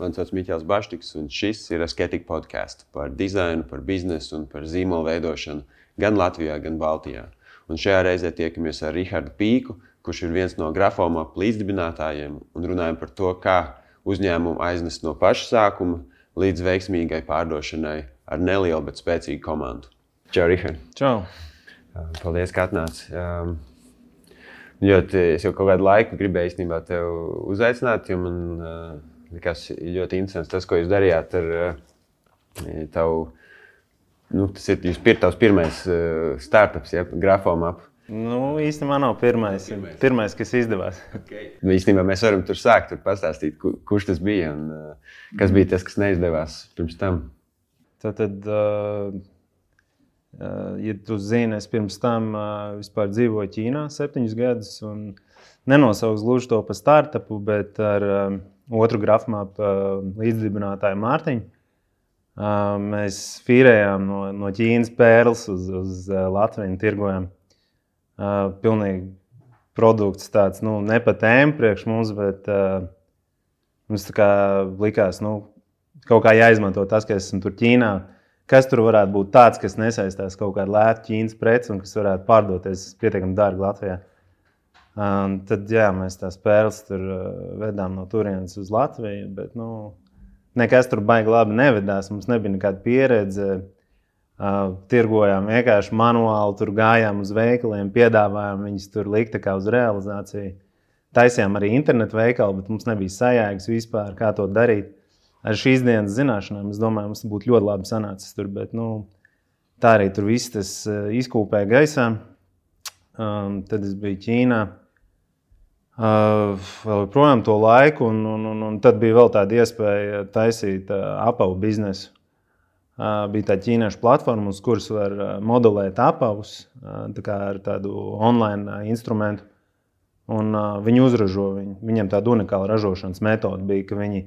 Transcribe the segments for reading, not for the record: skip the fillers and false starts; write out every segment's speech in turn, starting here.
mani sauc Miķels Baštiks, un šis ir Asketic podcasts par dizainu, par biznesu un par zīmolu veidošanu gan Latvijā, gan Baltijā. Un šajā reizē tiekamies ar Rihardu Pīku, kurš ir viens no Grafomap līdzdibinātājiem, un runājam par to, kā uzņēmumu aiznest no paša sākuma līdz veiksmīgai pārdošanai ar nelielu, bet spēcīgu komandu. Čau, Rihard! Čau! Paldies, ka atnāci. Es jau kaut kādu laiku gribēju īstenībā tevi uzaicināt, jo man likās ļoti interesants tas, ko jūs darījāt ar tavu, tas ir tavs pirmais startups, ja, Grafomap. Īstenībā nav pirmais, kas izdevās. Okay. Īstenībā mēs varam tur sākt, pastāstīt, kurš tas bija un kas bija tas, kas neizdevās pirms tam. Ja tu zini, es pirms tam vispār dzīvoju Ķīnā 7 gadus un nenosaucu gluži to par startupu, bet ar otru Grafomap līdzdibinātāju Mārtiņu. Mēs fīrējām no Ķīnas pērles uz Latviju un tirgojām. Pilnīgi produkts tāds, ne pa tēmu priekš mums, bet mums tā kā likās, kaut kā jāizmanto tas, ka esam tur Ķīnā. Kas tur varētu būt tāds, kas nesaistās kaut kādu lētu Ķīnas preci un kas varētu pārdoties pietiekami dārgi Latvijā. Tad, mēs tās pērles tur vedām no turienes uz Latviju, bet, nekas tur baigi labi nevedās. Mums nebija nekāda pieredze. Tirgojām vienkārši manuāli, tur gājām uz veikaliem, piedāvājām viņus tur likt kā uz realizāciju. Taisījām arī internetu veikalu, bet mums nebija sajēgas vispār, kā to darīt. Ar šīs dienas zināšanām, es domāju, mums būtu ļoti labi sanācis tur, bet tā arī tur viss tas izkūpēja gaisā. Tad es biju Ķīnā vēl projām to laiku, un tad bija vēl tāda iespēja taisīt apavu biznesu. Bija tā ķīniešu platforma, uz kuras var modelēt apavus ar tādu online instrumentu, un viņi uzražo viņu. Viņiem tāda unikāla ražošanas metode bija, ka viņi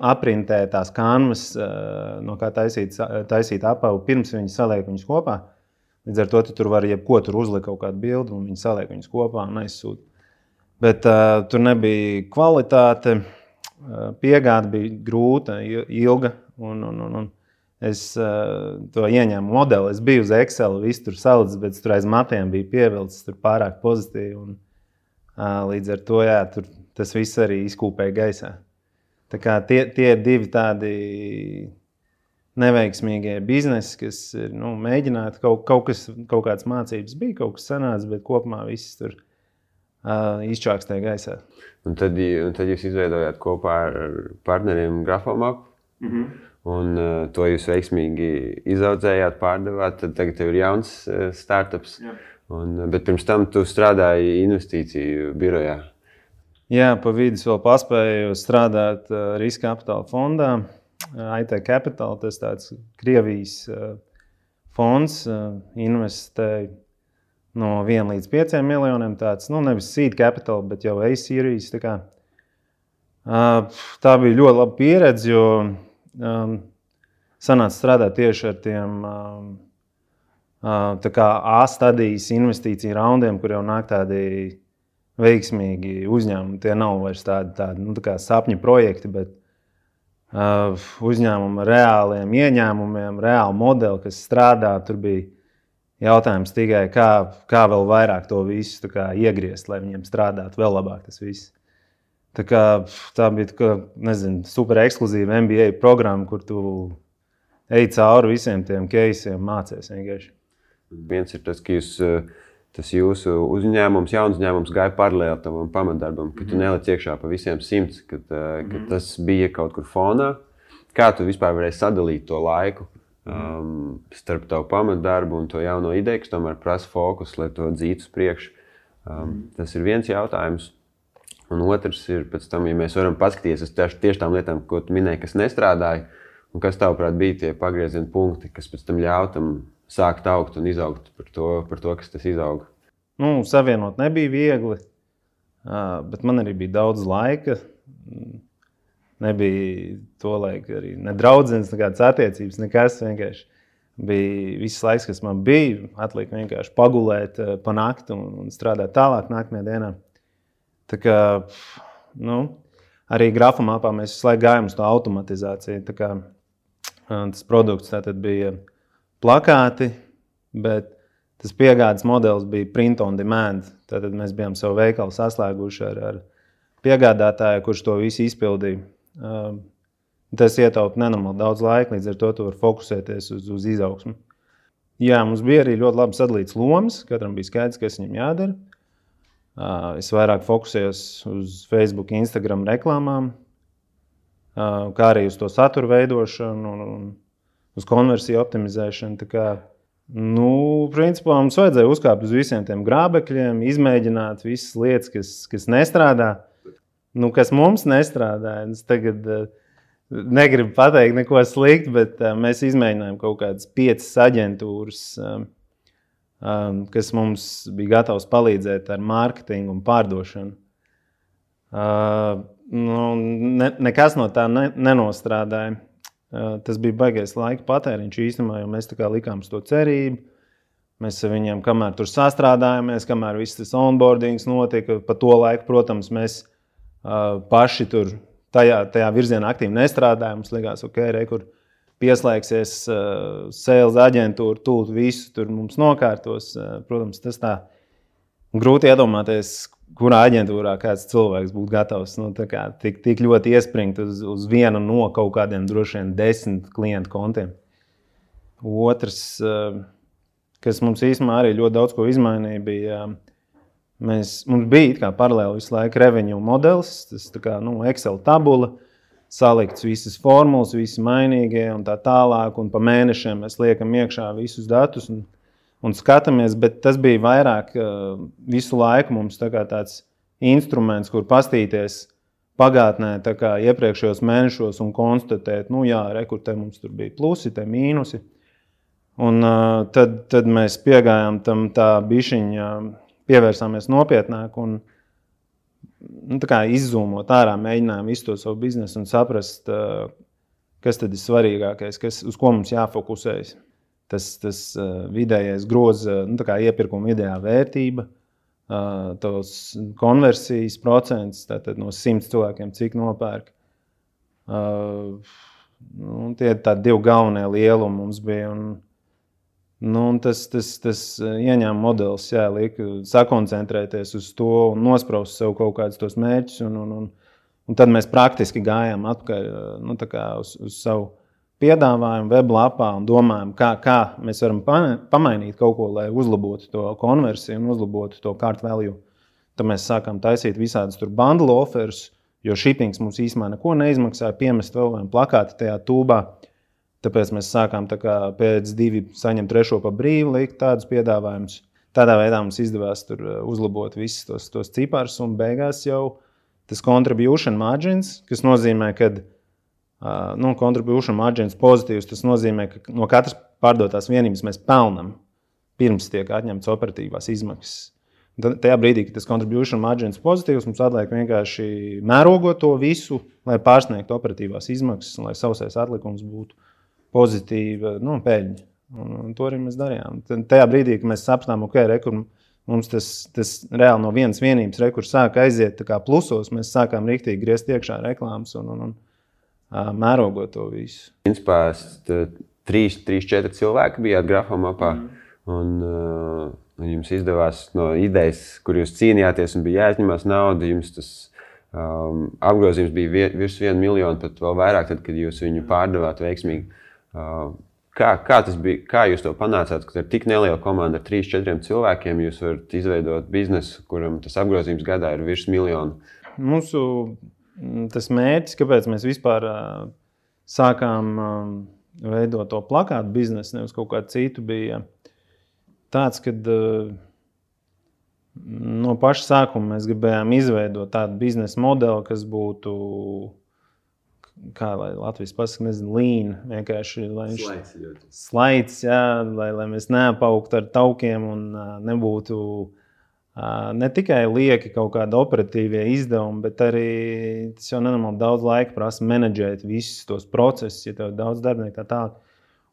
aprintē tās kanvas, no kā taisīt apavu, pirms viņi saliek viņus kopā. Līdz ar to tur var jebko tur uzlikt kaut kādu bildi, un viņi saliek viņus kopā un aizsūta. Bet tur nebija kvalitāte, piegāde bija grūta, ilga, un es to ieņēmu modeli. Es biju uz Excel, visu tur salicis, bet tur aiz matiem bija pievilcis tur pārāk pozitīvi, un līdz ar to, tas viss arī izkūpēja gaisā. Tā kā tie ir divi tādi neveiksmīgie biznesi, kas ir mēģināti. Kaut kādas mācības bija, kaut kas sanāca, bet kopumā viss tur izčākstēja gaisā. Un tad jūs izveidojāt kopā ar partneriem Grafomap, un to jūs veiksmīgi izaudzējāt, pārdevāt. Tad tagad tev ir jauns startups, bet pirms tam tu strādāji investīciju birojā. Jā, pa vidus vēl paspēju strādāt riska kapitāla fondā. IT Capital, tas tāds Krievijas fonds, investēja no 1 līdz 5 miljoniem. Tāds, nevis seed capital, bet jau A-series. Tā bija ļoti laba pieredze, jo sanāca strādāt tieši ar tiem A-stadijas investīciju raundiem, kur jau nāk tādi veiksmīgi uzņēmumi. Tie nav vairs tādi sapņu projekti, bet uzņēmumi ar reāliem ieņēmumiem, reāli modeli, kas strādā. Tur bija jautājums tikai, kā vēl vairāk to visu iegriezt, lai viņiem strādātu vēl labāk tas viss. Tā bija super ekskluzīva MBA programma, kur tu ej cauri visiem tiem case'iem, mācies vienkārši. Viens ir tas, ka tas jūsu uzņēmums, jauns uzņēmums gāja paralēli tavam pamatdarbam, ka tu neliec iekšā pa visiem 100, ka tas bija kaut kur fonā. Kā tu vispār varēji sadalīt to laiku starp tavu pamatdarbu un to jauno ideju, kas tomēr prasa fokus, lai to dzītu uz priekšu? Tas ir viens jautājums. Un otrs ir pēc tam, ja mēs varam paskatīties uz tieši tām lietām, ko tu minēji, kas nestrādāja, un kas tavuprāt bija tie pagrieziena punkti, kas pēc tam ļauj tam sākt augt un izaugt par to, kas tas izauga. Savienot nebija viegli, bet man arī bija daudz laika. Nebija to laiku arī ne draudzenes, nekādas attiecības, nekas. Vienkārši bija viss laiks, kas man bija. Atlika vienkārši pagulēt pa nakti un strādāt tālāk nākamajā dienā. Tā kā, arī grafomapā mēs visu laiku gājām uz to automatizāciju. Tā kā tas produkts tātad bija plakāti, bet tas piegādes modelis bija print on demand. Tātad mēs bijām savu veikalu saslēguši ar piegādātāju, kurš to visu izpildīja. Tas ietaupa nenormāli daudz laika, līdz ar to tu vari fokusēties uz izaugsmu. Jā, mums bija arī ļoti labi sadalīts lomas, katram bija skaidrs, kas viņam jādara. Es vairāk fokusējos uz Facebook, Instagram reklāmām, kā arī uz to satura veidošanu un uz konversiju optimizēšanu. Tā kā, principā mums vajadzēja uzkāpt uz visiem tiem grābekļiem, izmēģināt visas lietas, kas nestrādā. Kas mums nestrādā, es tagad negribu pateikt neko sliktu, bet mēs izmēģinājām kaut kādas 5 aģentūras, kas mums bija gatavs palīdzēt ar mārketingu un pārdošanu. Nekas no tā nenostrādāja. Tas bija baigais laika patēriņš īstenībā, jo mēs tā kā likām uz to cerību. Mēs ar viņiem, kamēr tur sastrādājāmies, kamēr viss tas onboardings notika, pa to laiku, protams, mēs paši tur tajā virzienā aktīvi nestrādājām. Mums likās, kur pieslēgsies sales aģentūra, tūlīt visu tur mums nokārtos. Protams, tas tā grūti iedomāties, kurā aģentūrā kāds cilvēks būtu gatavs tik ļoti iespringt uz vienu no kaut kādiem droši vien 10 klientu kontiem. Otrs, kas mums īstenībā arī ļoti daudz ko izmainīja, bija mums bija kā paralēli visu laiku revenue modelis, tas Excel tabula, salikts visas formulas, visi mainīgie un tā tālāk, un pa mēnešiem mēs liekam iekšā visus datus un skatāmies, bet tas bija vairāk visu laiku mums tāds instruments, kur pastīties pagātnē iepriekšējos mēnešos un konstatēt, kur te mums tur bija plusi, te mīnusi. Un tad mēs piegājām tam tā bišķiņa, pievērsāmies nopietnāk un izzūmot ārā, mēģinājām visu to savu biznesu un saprast, kas tad ir svarīgākais, uz ko mums jāfokusējas. Tas vidējais groza, iepirkuma vidējā vērtība, tos konversijas procents, tātad no 100 cilvēkiem, cik nopērk. Tie tādi 2 galvenie lielumi mums bija. Un tas ieņēma modelis, liek sakoncentrēties uz to un nospraust sev kaut kādus tos mērķus. Un tad mēs praktiski gājām atpakaļ uz savu piedāvājumu weblapā un domājam, kā mēs varam pamainīt kaut ko, lai uzlabotu to konversiju un uzlabotu to cart value. Tad mēs sākām taisīt visādus tur bundle offers, jo shippings mums īstenībā neko neizmaksāja, piemest vēl vienu plakāti tajā tūbā. Tāpēc mēs sākām pēc 2 saņemt 3 pa brīvu, likt tādus piedāvājumus. Tādā veidā mums izdevās tur uzlabot visus tos ciparus un beigās jau tas contribution margins, kas nozīmē, ka contribution margins pozitīvs, tas nozīmē, ka no katras pārdotās vienības mēs pelnam pirms tiek atņemts operatīvās izmaksas. Tajā brīdī, kad tas contribution margins pozitīvs, mums atliek vienkārši mērogot to visu, lai pārsniegtu operatīvās izmaksas un lai sausais atlikums būtu pozitīva peļņa. Un to arī mēs darījām. Tajā brīdī, kad mēs sapratām, kur mums tas reāli no vienas vienības kur sāka aiziet plusos, mēs sākām riktīgi griezt iekšā reklāmas un mērogot to visu. Principā 3-4 cilvēki bijāt grafomapā un jums izdevās no idejas, kur jūs cīnījāties un bija jāizņemās nauda, jums tas apgrozījums bija virs 1 miljonu, pat vēl vairāk, tad, kad jūs viņu pārdevāt veiksmīgi. Kā tas bija, kā jūs to panācāt, ka ar tik nelielu komandu ar 3-4 cilvēkiem jūs varat izveidot biznesu, kuram tas apgrozījums gadā ir virs 1 miljonu? Mūsu tas mērķis, kāpēc mēs vispār sākām veidot to plakātu biznesu, nevis kaut kādu citu, bija tāds, kad no paša sākuma mēs gribējām izveidot tādu biznesa modeli, kas būtu, kā lai Latvijas pasaka, lean, vienkārši slaids, lai mēs neapaugtu ar taukiem un nebūtu ne tikai lieki kaut kādi operatīvie izdevumi, bet arī tas jau nenormāli daudz laika prasa menedžēt visus tos procesus, ja tev daudz darbinieku tā.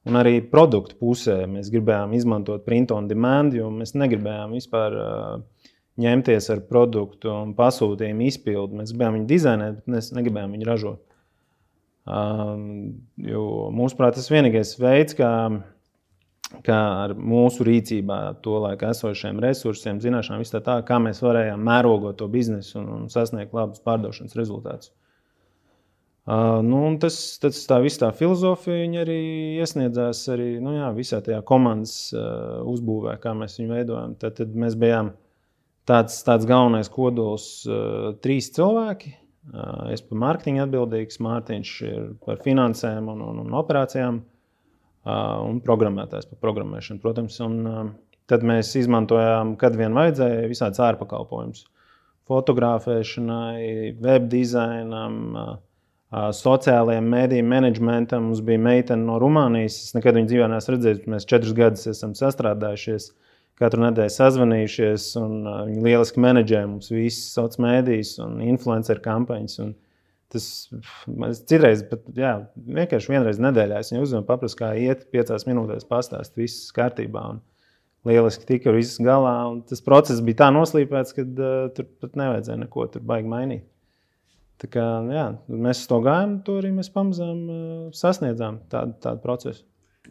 Un arī produktu pusē mēs gribējām izmantot print on demand, jo mēs negribējām vispār ņemties ar produktu un pasūtījumu izpildu. Mēs gribējām viņu dizainēt, bet mēs negribējām viņu ražot. Jo mūsuprāt, tas vienīgais veids, kā ar mūsu rīcībā to laiku esošiem resursiem, zināšanām, viss tā, kā mēs varējām mērogot to biznesu un sasniegt labus pārdošanas rezultātus. Tas tā viss tā filozofija, viņa arī iesniedzās arī, visā tajā komandas uzbūvē, kā mēs viņu veidojam. Tad mēs bijām tāds galvenais kodols 3 cilvēki. Es par mārketingu atbildīgs, Mārtiņš ir par finansēm un operācijām un programmētājs par programmēšanu, protams. Un tad mēs izmantojām, kad vien vajadzēja, visādas ārpakalpojumus. Fotografēšanai, web dizainam, sociālajiem mēdīju menedžmentam. Mums bija meitene no Rumānijas. Es nekad viņu dzīvē neesmu redzējis. Mēs 4 gadus esam sastrādājušies, katru nedēļu sazvanījušies, un viņi lieliski menedžē mums visas sociālās mēdījus un influenceru kampaņas. Un tas citreiz, vienkārši vienreiz nedēļā es viņu uzvanu, paprastu, kā iet, 5 minūtēs pastāst, viss kārtībā. Un lieliski tika ar visu galā. Un tas process bija tā noslīpēts, ka tur pat nevajadzēja neko tur baigi mainīt. Tā kā, mēs uz to gājām, to arī mēs pamazām sasniedzām tādu procesu.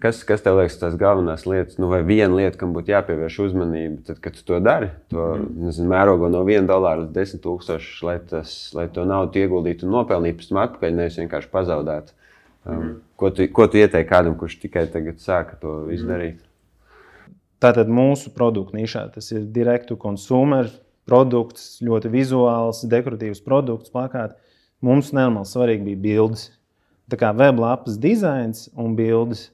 Kas tev liekas tās galvenās lietas, vai viena lieta, kam būtu jāpievērš uzmanība, tad, kad tu to dari, mērogo no $1 līdz 10,000, lai to naudu ieguldītu un nopelnītu pēc tam atpakaļ, nevis vienkārši pazaudētu. Ko tu ieteiksi kādam, kurš tikai tagad sāka to visu darīt? Tātad mūsu produktu nišā, tas ir direct to consumer produkts, ļoti vizuāls, dekoratīvs produkts, plakāti. Mums nenormāli svarīgi bija bildes. Tā kā weblapas dizains un bildes.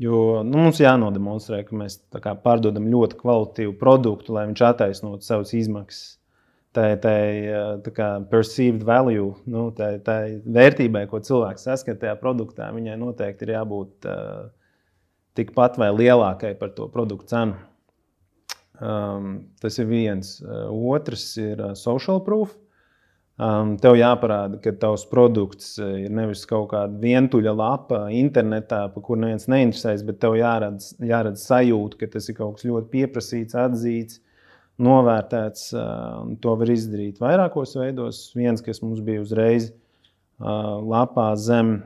Jo mums jānodemonstrē, ka mēs pārdodam ļoti kvalitatīvu produktu, lai viņš attaisnotu savas izmaksas. Tā perceived value, tā vērtībai, ko cilvēks saskat tajā produktā, viņai noteikti ir jābūt tikpat vai lielākai par to produktu cenu. Tas ir viens. Otrs ir social proof. Tev jāparāda, ka tavs produkts ir nevis kaut kāda vientuļa lapa internetā, pa kur neviens neinteresēs, bet tev jāredz sajūta, ka tas ir kaut kas ļoti pieprasīts, atzīts, novērtēts. To var izdarīt vairākos veidos. Viens, kas mums bija uzreiz lapā zem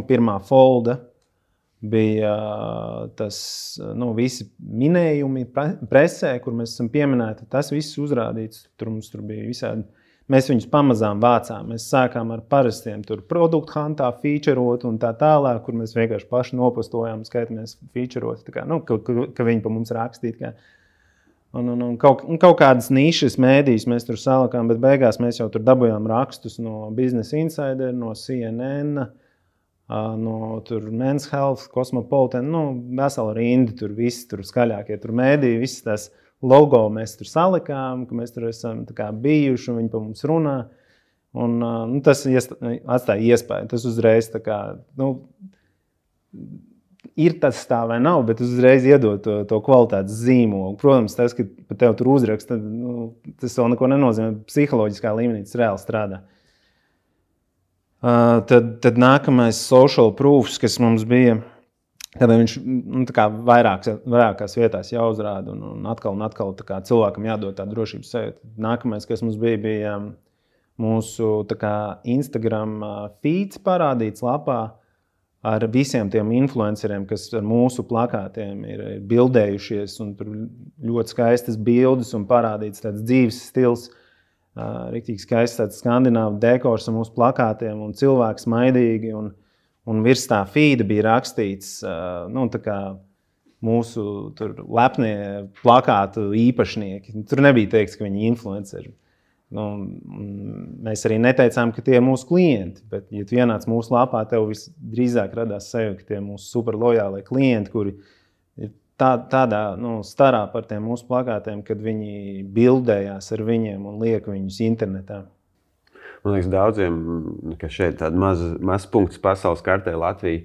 pirmā folda, bija tas, visi minējumi presē, kur mēs esam pieminēti. Tas viss uzrādīts, mums tur bija visādi. Mēs viņus pamazām vācām. Mēs sākām ar parastiem produktu huntā featureot un tā tālāk, kur mēs vienkārši paši nopostojām, skaitamies featureot, ka viņi pa mums rakstīt. Un kaut kādas nišas mēdījus mēs tur salikām, bet beigās mēs jau tur dabujām rakstus no Business Insider, no CNN, no Men's Health, Cosmopolitan, vesela rinda, tur visi tur skaļākie tur mēdīji, visas tās logo mēs tur salikām, ka mēs tur esam bijuši un viņi pa mums runā. Un tas atstāja iespēju. Tas uzreiz ir tas tā vai nav, bet uzreiz iedod to kvalitātes zīmolu. Protams, tas, ka pa tev tur uzraksta, tas vēl neko nenozīmē. Psiholoģiskā līmenī tas reāli strādā. Tad nākamais social proofs, kas mums bija, kad viņš vairākās vietās jāuzrāda un atkal cilvēkam jādod tā drošības sajūta. Nākamais, kas mums bija mūsu Instagram feeds parādīts lapā ar visiem tiem influenceriem, kas ar mūsu plakātiem ir bildējušies, un tur ļoti skaistas bildes un parādīts tāds dzīves stils, riktīgi skaists tāds skandināvu dekors ar mūsu plakātiem un cilvēks maidīgi, un virs tā feeda bija rakstīts, mūsu tur lepnie plakātu īpašnieki. Tur nebija teikts, ka viņi influenceri. Mēs arī neteicām, ka tie ir mūsu klienti, bet, ja tu ienāc mūsu lapā, tev visdrīzāk radās sajūta, ka tie ir mūsu super lojālie klienti, kuri ir tādā starā par tiem mūsu plakātiem, kad viņi bildējās ar viņiem un liek viņus internetā. Man liekas, daudziem, ka šeit tāda maz punkts pasaules kartē Latvija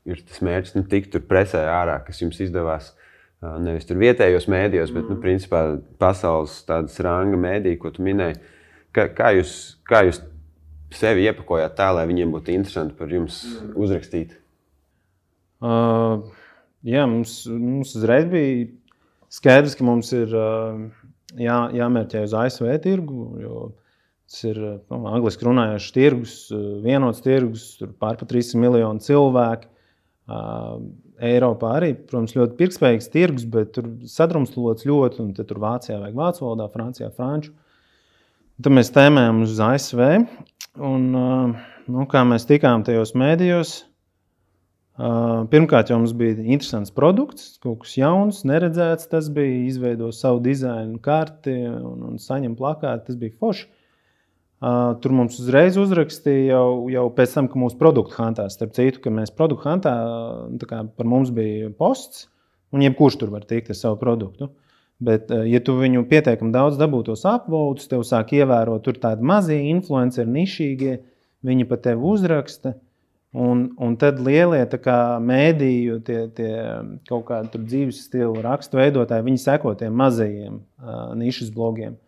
ir tas mērķis tikt tur presē ārā, kas jums izdevās nevis tur vietējos mēdījos, bet, principā, pasaules tādas ranga mēdī, ko tu minēji. Kā jūs sevi iepakojāt tā, lai viņiem būtu interesanti par jums uzrakstīt? Mums uzreiz bija Skaidrs, ka mums ir jāmērķē uz ASV tirgu, jo tas ir angliski runājošs tirgus, vienots tirgus, tur pār pa 300 miljonu cilvēku. Eiropā arī, protams, ļoti pirktspējīgs tirgus, bet tur sadrumstalots ļoti, un tur Vācijā vajag vācu valodā, Francijā franču. Tad mēs tēmējam uz ASV, un kā mēs tikām tajos mēdījos, pirmkārt jau mums bija interesants produkts, kaut kas jauns, neredzēts, tas bija izveido savu dizainu karti un saņem plakāti, tas bija forši. Tur mums uzreiz uzrakstīja jau pēc tam, ka mūsu produktu hantā, starp citu, ka mēs produktu hantā, par mums bija posts, un jebkurš tur var tikt ar savu produktu. Bet, ja tu viņu pietiekami daudz dabūtos upvotes, tev sāk ievērot tur tādi mazie influenceri, nišīgie, viņi pa tevi uzraksta, un tad lielie mēdīju, tie kaut kādi tur dzīves stilu rakstu veidotāji, viņi seko tiem mazajiem nišas blogiem.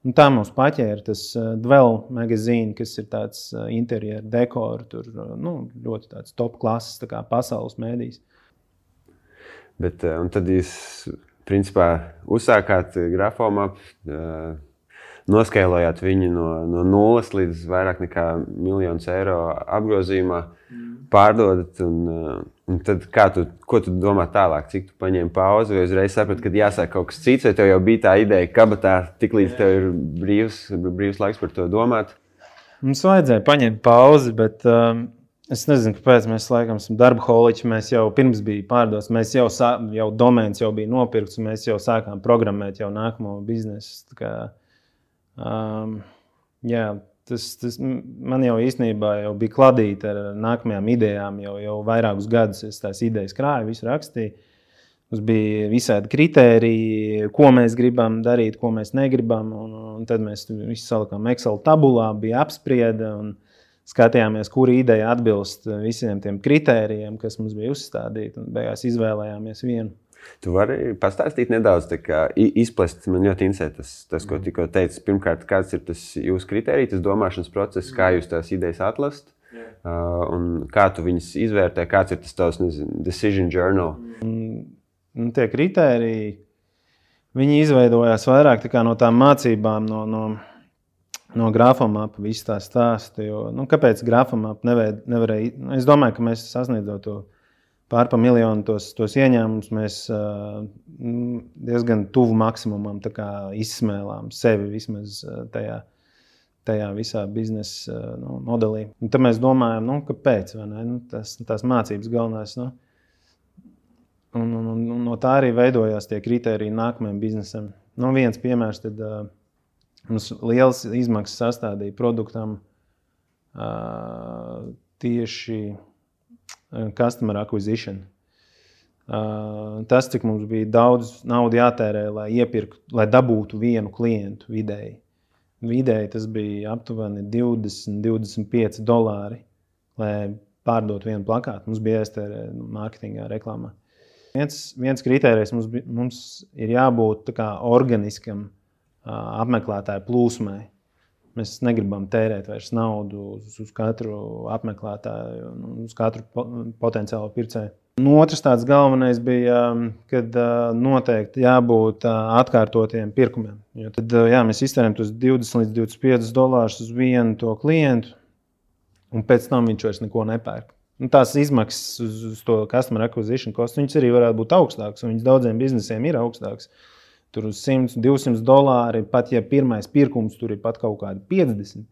Un tā mums paķēra tas Dwell magazīni, kas ir tāds interjeru dekoru, tur ļoti tāds top klases, tā kā pasaules mēdījis. Bet, un tad jūs, principā, uzsākāt Grafomap, noskailojāt viņu no 0 līdz vairāk nekā 1 miljonu eiro apgrozījumā, pārdodat, un tad ko tu domā tālāk? Cik tu paņēmi pauzi, vai uzreiz saprati, kad jāsāk kaut kas cits, vai tev jau bija tā ideja kabatā, tik līdz tev ir brīvs laiks par to domāt? Mums vajadzēja paņemt pauzi, bet es nezinu, kāpēc mēs laikam esam darbaholiķi, mēs jau pirms bija pārdos, mēs jau domēns jau bija nopirkts, un mēs jau sākām programmēt jau nākamo biznesu. Tas man jau īstenībā jau bija kladīta ar nākamajām idejām, jau vairākus gadus es tās idejas krāju, visu rakstīju. Mums bija visādi kritēriji, ko mēs gribam darīt, ko mēs negribam, un tad mēs visu salikām Excel tabulā, bija apsprieda un skatījāmies, kura ideja atbilst visiem tiem kritērijiem, kas mums bija uzstādīti, un beigās izvēlējāmies vienu. Tu vari pastāstīt nedaudz, izplest, man ļoti interesē tas, ko tikko teici. Pirmkārt, kāds ir tas jūsu kritērija, tas domāšanas process, kā jūs tās idejas atlasat, un kā tu viņas izvērtē, kāds ir tas tavs, decision journal? Tie kritēriji, viņi izveidojās vairāk no tām mācībām, no Grafomap, visu tā stāstu, jo, kāpēc Grafomap nevarēja, es domāju, ka mēs sasniedzot to pār pa miljonu tos ieņēmumus, mēs diezgan tuvu maksimumam izsmēlām sevi vismaz tajā visā biznesa modelī. Un tad mēs domājam, kāpēc, vai ne? Tās mācības galvenās. Un no tā arī veidojās tie kritēriji nākamajam biznesam. Viens piemērs, tad mums liels izmaksas sastādīja produktam tieši customer acquisition. Tas, cik mums bija daudz naudu jātērē, lai dabūtu vienu klientu vidēji. Vidēji tas bija aptuveni $20-25, lai pārdotu vienu plakātu. Mums bija jāiztērē mārketingā, reklāmā. Viens kritērijs mums ir jābūt organiskam apmeklētāju plūsmai. Mēs negribam tērēt vairs naudu uz katru apmeklētāju, uz katru potenciālu pircēju. Otrs tāds galvenais bija, kad noteikti jābūt atkārtotiem pirkumiem. Jo tad mēs iztērējam tos $20-25 uz vienu to klientu, un pēc tam viņš vairs neko nepērk. Tās izmaksas uz to customer acquisition cost, viņas arī varētu būt augstākas, un viņas daudziem biznesiem ir augstākas. Tur uz $100-200, pat ja pirmais pirkums tur ir pat kaut kādi 50.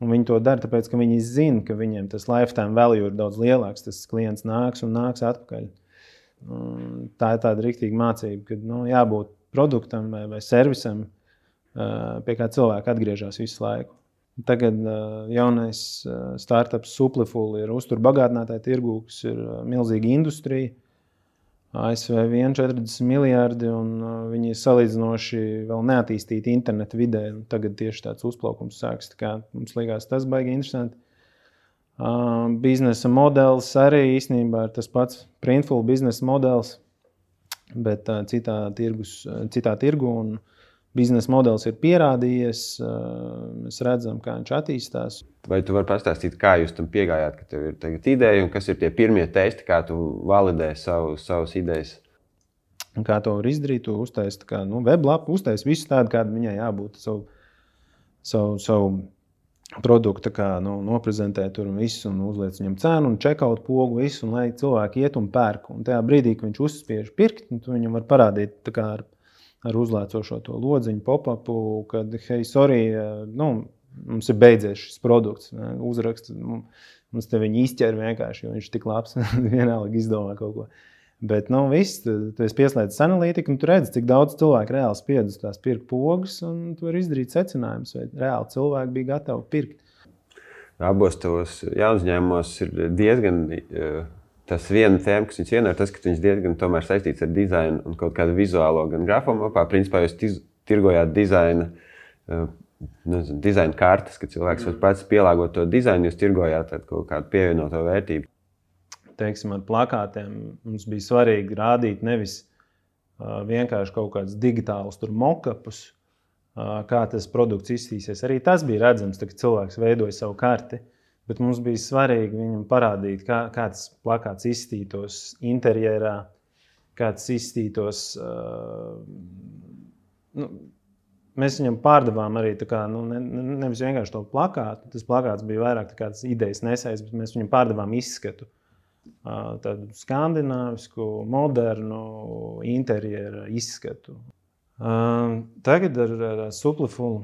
Un viņi to dara, tāpēc, ka viņi zina, ka viņiem tas lifetime value ir daudz lielāks. Tas klients nāks un nāks atpakaļ. Tā ir tāda riktīga mācība, ka jābūt produktam vai servisam, pie kā cilvēki atgriežas visu laiku. Tagad jaunais startups Supliful ir uzturbagātinātāja tirgū, kas ir milzīga industrija. ASV 40 miljardi, un viņi ir salīdzinoši vēl neattīstīti interneta vidē. Tagad tieši tāds uzplaukums sāks. Mums liekas, tas baigi interesanti. Biznesa modelis arī īstenībā ir tas pats Printful biznesa modelis, bet citā tirgu. Un biznesa modelis ir pierādījies. Mēs redzam, kā viņš attīstās. Vai tu vari pastāstīt, kā jūs tam piegājāt, ka tev ir tagad ideja, un kas ir tie pirmie testi, kā tu validē savas idejas? Un kā to var izdarīt, tu uztaisi weblapu, uztaisi visu tādu, kāda viņai jābūt, savu produktu noprezentē tur un visu, un uzliec viņam cenu, un checkout pogu visu, un lai cilvēki iet un pērk. Un tajā brīdī, kad viņš uzspiež pirkt, tu viņam var parādīt ar uzlēcošo to lodziņu pop-upu, kad, hei, sorry, mums ir beidzies šis produkts, uzraksts, mums te viņi izķer vienkārši, jo viņš tik labs, vienalga izdomā kaut ko. Bet, viss, tu esi pieslēdzis analītiku, un tu redzi, cik daudz cilvēku reāli spied uz tās pirkt pogas, un tu vari izdarīt secinājumus, vai reāli cilvēki bija gatavi pirkt. Abos tavos jaunuzņēmumos ir diezgan tas viena tēma, kas viņus vienā, ir tas, ka viņas diezgan tomēr saistīts ar dizainu un kaut kādu vizuālo gan grafomapā. Principā jūs tirgojāt dizaina kartes, ka cilvēks var pats pielāgot to dizainu, jūs tirgojāt kaut kādu pievienoto vērtību. Teiksim, ar plakātiem mums bija svarīgi rādīt nevis vienkārši kaut kādus digitālus mock-upus, kā tas produkts izstīsies. Arī tas bija redzams, kad cilvēks veidoja savu karti, bet mums bija svarīgi viņam parādīt, kā tas plakāts izstītos interjerā, kā tas izstītos. Mēs viņam pārdevām arī nevis vienkārši to plakātu. Tas plakāts bija vairāk tāds idejas nesējs, bet mēs viņam pārdevām izskatu. Tādu skandināvisku, modernu interjera izskatu. Tagad ar Supliful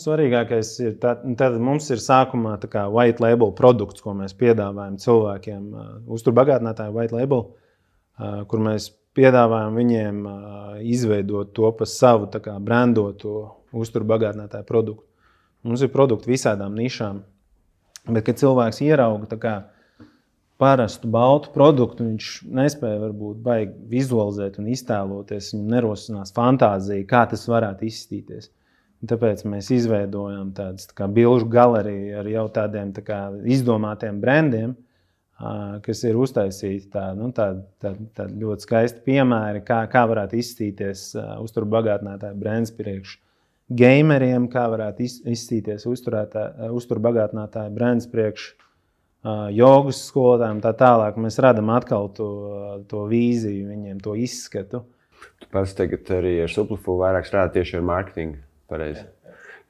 svarīgākais ir, tad mums ir sākumā white label produkts, ko mēs piedāvājam cilvēkiem, uzturbagātinātāju white label, kur mēs piedāvājam viņiem izveidot to pa savu brandoto uzturbagātinātāju produktu. Mums ir produkti visādām nišām. Bet, kad cilvēks ierauga parastu baltu produktu, viņš nespēja varbūt baigi vizualizēt un iztēloties, viņam nerosinās fantāzija, kā tas varētu izstīties. Un tāpēc mēs izveidojam tādas bilžu galeriju ar jau tādiem izdomātiem brandiem, kas ir uztaisīti tādi ļoti skaisti piemēri, kā varētu izstīties uzturbagātinātāju brands priekš gameriem, kā varētu izstīties uzturbagātinātāju brands priekš jogas skolotājiem, tā tālāk. Mēs radam atkal to vīziju viņiem, to izskatu. Tu pats tagad arī ar Supliful vairāk strādā tieši ar mārketingu, pareizi.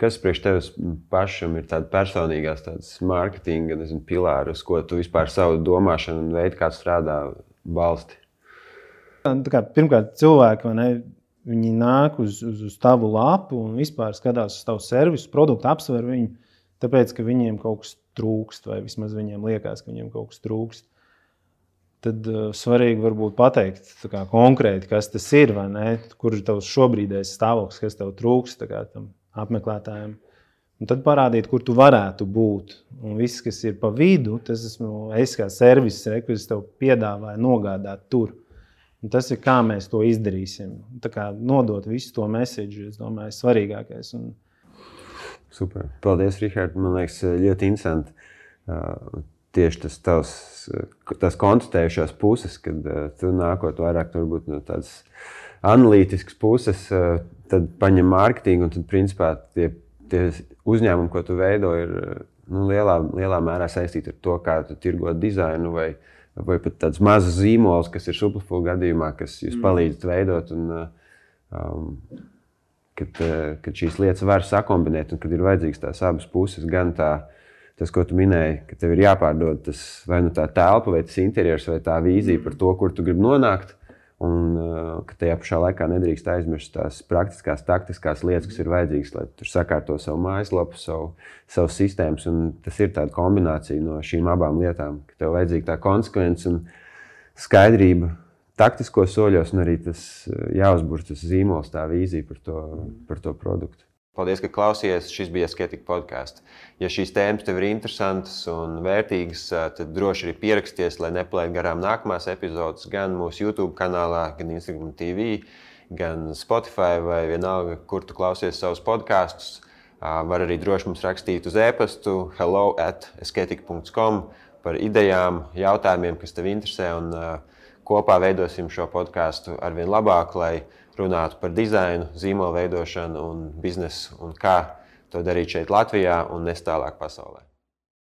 Kas priekš tevis pašam ir tāda personīgās tādas mārketinga, pilāri, uz ko tu vispār savu domāšanu un veidu, kā strādā balsti? Pirmkārt, cilvēki, viņi nāk uz tavu lapu un vispār skatās uz tavu servisu, produktu, apsver viņu, tāpēc, ka viņiem kaut kas trūkst, vai vismaz viņiem liekas, ka viņiem kaut kas trūkst. Tad svarīgi varbūt pateikt konkrēti, kas tas ir, vai ne, kur ir tavs šobrīdējais stāvoklis, kas tev trūkst tam apmeklētājiem. Un tad parādīt, kur tu varētu būt. Un viss, kas ir pa vidu, tas esmu es kā serviss, ko es tev piedāvāju nogādāt tur. Un tas ir, kā mēs to izdarīsim. Nodot visu to message, es domāju, svarīgākais. Super. Paldies, Rihard. Man liekas, ļoti interesanti. Tieši tas konstatējušās puses, kad tu nākot vairāk varbūt no tādas analītiskas puses, tad paņem mārketingu un tad, principā, tie uzņēmumi, ko tu veido, ir lielā mērā saistīti ar to, kā tu tirgo dizainu vai pat tāds mazs zīmols, kas ir Supliful gadījumā, kas jūs palīdzat veidot un kad šīs lietas var sakombinēt un kad ir vajadzīgs tās abas puses, gan tas, ko tu minēji, ka tev ir jāpārdod tas vai tā telpa, vai tas interjers, vai tā vīzija par to, kur tu gribi nonākt, un ka tajā pašā laikā nedrīkst aizmirst tās praktiskās, taktiskās lietas, kas ir vajadzīgas, lai tur sakārto savu mājaslapu, savu sistēmas, un tas ir tāda kombinācija no šīm abām lietām, ka tev vajadzīga tā konsekvence un skaidrība taktiskos soļos, un arī tas jāuzbur tas zīmols, tā vīzija par to produktu. Paldies, ka klausījies. Šis bija Asketika podcasts. Ja šīs tēmas tev ir interesantas un vērtīgas, tad droši arī pieraksties, lai nepalaid garām nākamās epizodes gan mūsu YouTube kanālā, gan Instagram TV, gan Spotify vai vienalga, kur tu klausies savus podcasts. Var arī droši mums rakstīt uz e-pastu hello@asketika.com par idejām, jautājumiem, kas tev interesē, un kopā veidosim šo podcastu arvien labāk, lai runātu par dizainu, zīmolu veidošanu un biznesu un kā to darīt šeit Latvijā un nes tālāk pasaulē.